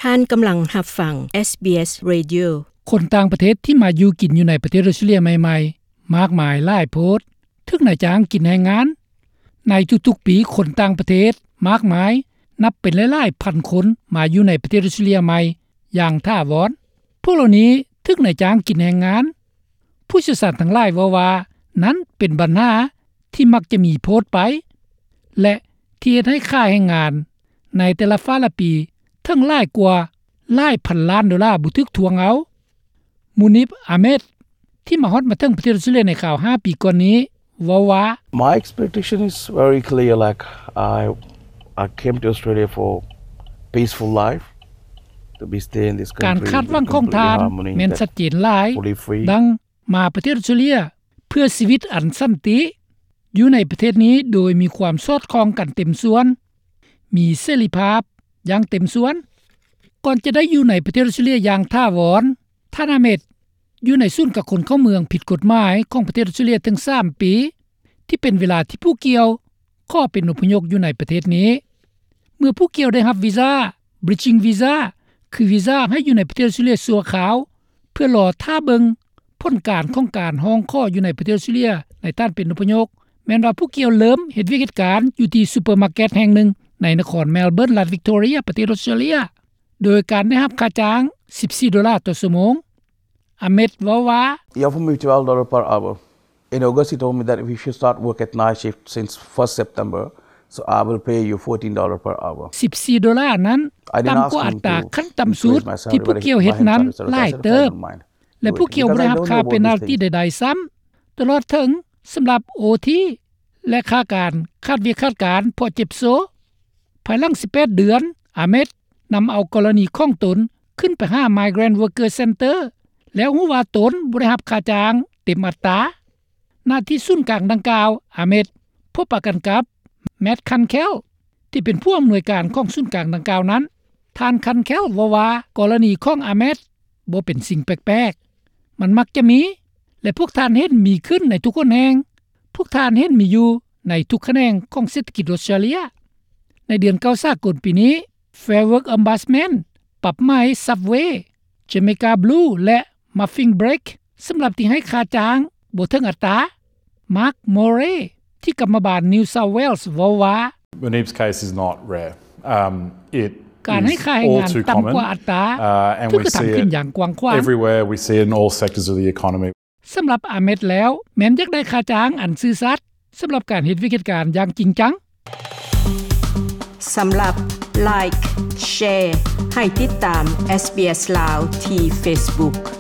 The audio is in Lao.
ທ່ານກຳລັງຮັບຟັງ ເອສບີເອສ Radio. ຄົນຕ່າງປະເທດທີ່ມາຢູ່ກິນຢູ່ໃນປະເທດອົດສະຕຣາເລຍໃໝ່ໆ ມາກມາຍຫຼາຍໂພດ, ຖືກນາຍຈ້າງກິນແຮງງານ. ໃນທຸກໆປີ, ຄົນຕ່າງປະເທດມາກມາຍ ນັບເປັນຫຼາຍໆພັນຄົນ ມາຢູ່ໃນປະເທດອົດສະຕຣາເລຍໃໝ່ຢ່າງຖາວອນ. ພວກເຫຼົ່ານີ້ຖືກນາຍຈ້າງກິນແຮງງານ. ຜູ້ຊ່ຽວຊານທັງຫຼາຍເວົ້າວ່າ ນັ້ນເປັນບັນຫາທີ່ມັກຈະມີໂພດໄປ ແລະ ທີ່ເຮັດໃຫ້ຄ່າແຮງງານໃນແຕ່ລະຟ້າລະປີເຖິງຫຼາຍກວ່າຫຼາຍພັນລ້ານໂດລາບໍ່ຖືກທວງເອົາ. ມູນິບ ອາເມດ ທີ່ມາຮອດມາເຖິງປະເທດອົດສະຕຣາເລຍໃນຄາວຫ້າປີກ່ອນນີ້ ເວົ້າວ່າ My expectation is very clear, like, I, I came to Australia for peaceful life, to be stay in this country. ການຄາດຫວັງຂອງທ່ານແມ່ນຊັດເຈນຫຼາຍ, ດັ່ງມາປະເທດອົດສະຕຣາເລຍເພື່ອຊີວິດອັນສັນຕິ, ຢູ່ໃນປະເທດນີ້ໂດຍມີຄວາມສອດຄ່ອງກັນເຕັມສ່ວນ, ມີເສລີພາບຢ່າງເຕັມສ່ວນ. ກ່ອນຈະໄດ້ຢູ່ໃນປະເທດອົດສະຕຣາເລຍຢ່າງຖາວອນ, ທ່ານອາເມດ ຢູ່ໃນສູນກັກຄົນເຂົ້າເມືອງຜິດກົດໝາຍຂອງປະເທດອົດສະຕຣາເລຍເຖິງສາມປີ, ທີ່ເປັນເວລາທີ່ຜູ້ກ່ຽວຂໍເປັນອົບພະຍົບຢູ່ໃນປະເທດນີ້. ເມື່ອຜູ້ກ່ຽວໄດ້ຮັບວີຊາ Bridging Visa ຄືວີຊາໃຫ້ຢູ່ໃນປະເທດອົດສະຕຣາເລຍຊົ່ວຄາວ ເພື່ອລໍຖ້າເບິ່ງຜົນການຂອງການຮ້ອງຂໍຢູ່ໃນປະເທດອົດສະຕຣາເລຍໃນທ່ານເປັນອົບພະຍົບ, ແມ່ນວ່າຜູ້ກ່ຽວເລີ່ມເຮັດວຽກເຮັດການຢູ່ທີ່ຊຸບເປີມາເກັດແຫ່ງໜຶ່ງໃນນະຄອນເມລເບີນ ລັດວິກຕໍເຣຍ ປະເທດອົດສະຕຣາເລຍ. ໂດຍການໄດ້ຮັບຄ່າຈ້າງສິບສີ່ໂດລາຕໍ່ຊົ່ວໂມງ. ອາເມດ ເວົ້າວ່າ He offered me twelve dollars per hour. In August, he told me that we should start work at night shift since first September, so I will pay you fourteen dollars per hour. ສິບສີ່ໂດລານັ້ນ ຕ່ຳກວ່າອັດຕາຂັ້ນຕ່ຳສຸດທີ່ພວກເຈົ້າເຮັດນັ້ນຫຼາຍເຕີບ ແລະ ພວກເຈົ້າບໍ່ໄດ້ຮັບຄ່າເປັນນາລຕີໃດໆຊ້ຳ ຕະຫຼອດເຖິງສຳລັບໂອທີ ແລະ ຄ່າການຂາດວຽກຂາດການເພາະເຈັບໂຊ. ພາຍຫຼັງສິບແປດເດືອນ, ອາເມດ ນຳເອົາກໍລະນີຂອງຕົນຂຶ້ນໄປຫາ Migrant Worker Center ແລ້ວຮູ້ວ່າຕົນບໍ່ໄດ້ຮັບຄ່າຈ້າງເຕັມອັດຕາ. ນະທີ່ສູນກາງດັ່ງກ່າວ, ອາເມດ ພົບປະກັນກັບ ແມັດ ຄັນແຄວ ທີ່ເປັນຜູ້ອຳນວຍການຂອງສູນກາງດັ່ງກ່າວນັ້ນ. ທ່ານ ຄັນແຄວ ເວົ້າວ່າ ກໍລະນີຂອງອາເມດບໍ່ເປັນສິ່ງແປກໆ, ມັນມັກຈະມີ ແລະ ພວກທ່ານເຫັນມີຂຶ້ນໃນທຸກຫົນແຫ່ງ, ພວກທ່ານເຫັນມີຢູ່ໃນທຸກຂະແໜງຂອງເສດຖະກິດອົດສະຕຣາເລຍ. ໃນເດືອນເກົ້າສາກົນປີນີ້, Fair Work Ombudsman ປັບໃໝ Subway, Jamaica Blue ແລະ Muffin Break ສຳລັບທີ່ໃຫ້ຄ່າຈ້າງບໍ່ເຖິງອັດຕາ. ມາກ ໂມເຣ ທີ່ກຳມະບານ New South Wales ເວົ້າວ່າ Munib's case is not rare. Um, it ການໃຫ້ຄ່າແຮງງານຕ່ຳກວ່າອັດຕາ uh, and ຖືກ we ກະທຳ see ຂຶ້ນ it ຢ່າງກວ້າງຂວາງ everywhere. We see it in all sectors of the economy. ສຳລັບອາເມດແລ້ວ ແມ່ນຢາກໄດ້ຄ່າຈ້າງອັນຊື່ສັດ ສຳລັບການເຮັດວຽກເຮັດການຢ່າງຈິງຈັງ. ສຳລັບ Like, Share ໃຫ້ຕິດຕາມ SBS ລາວ ທີ່ Facebook.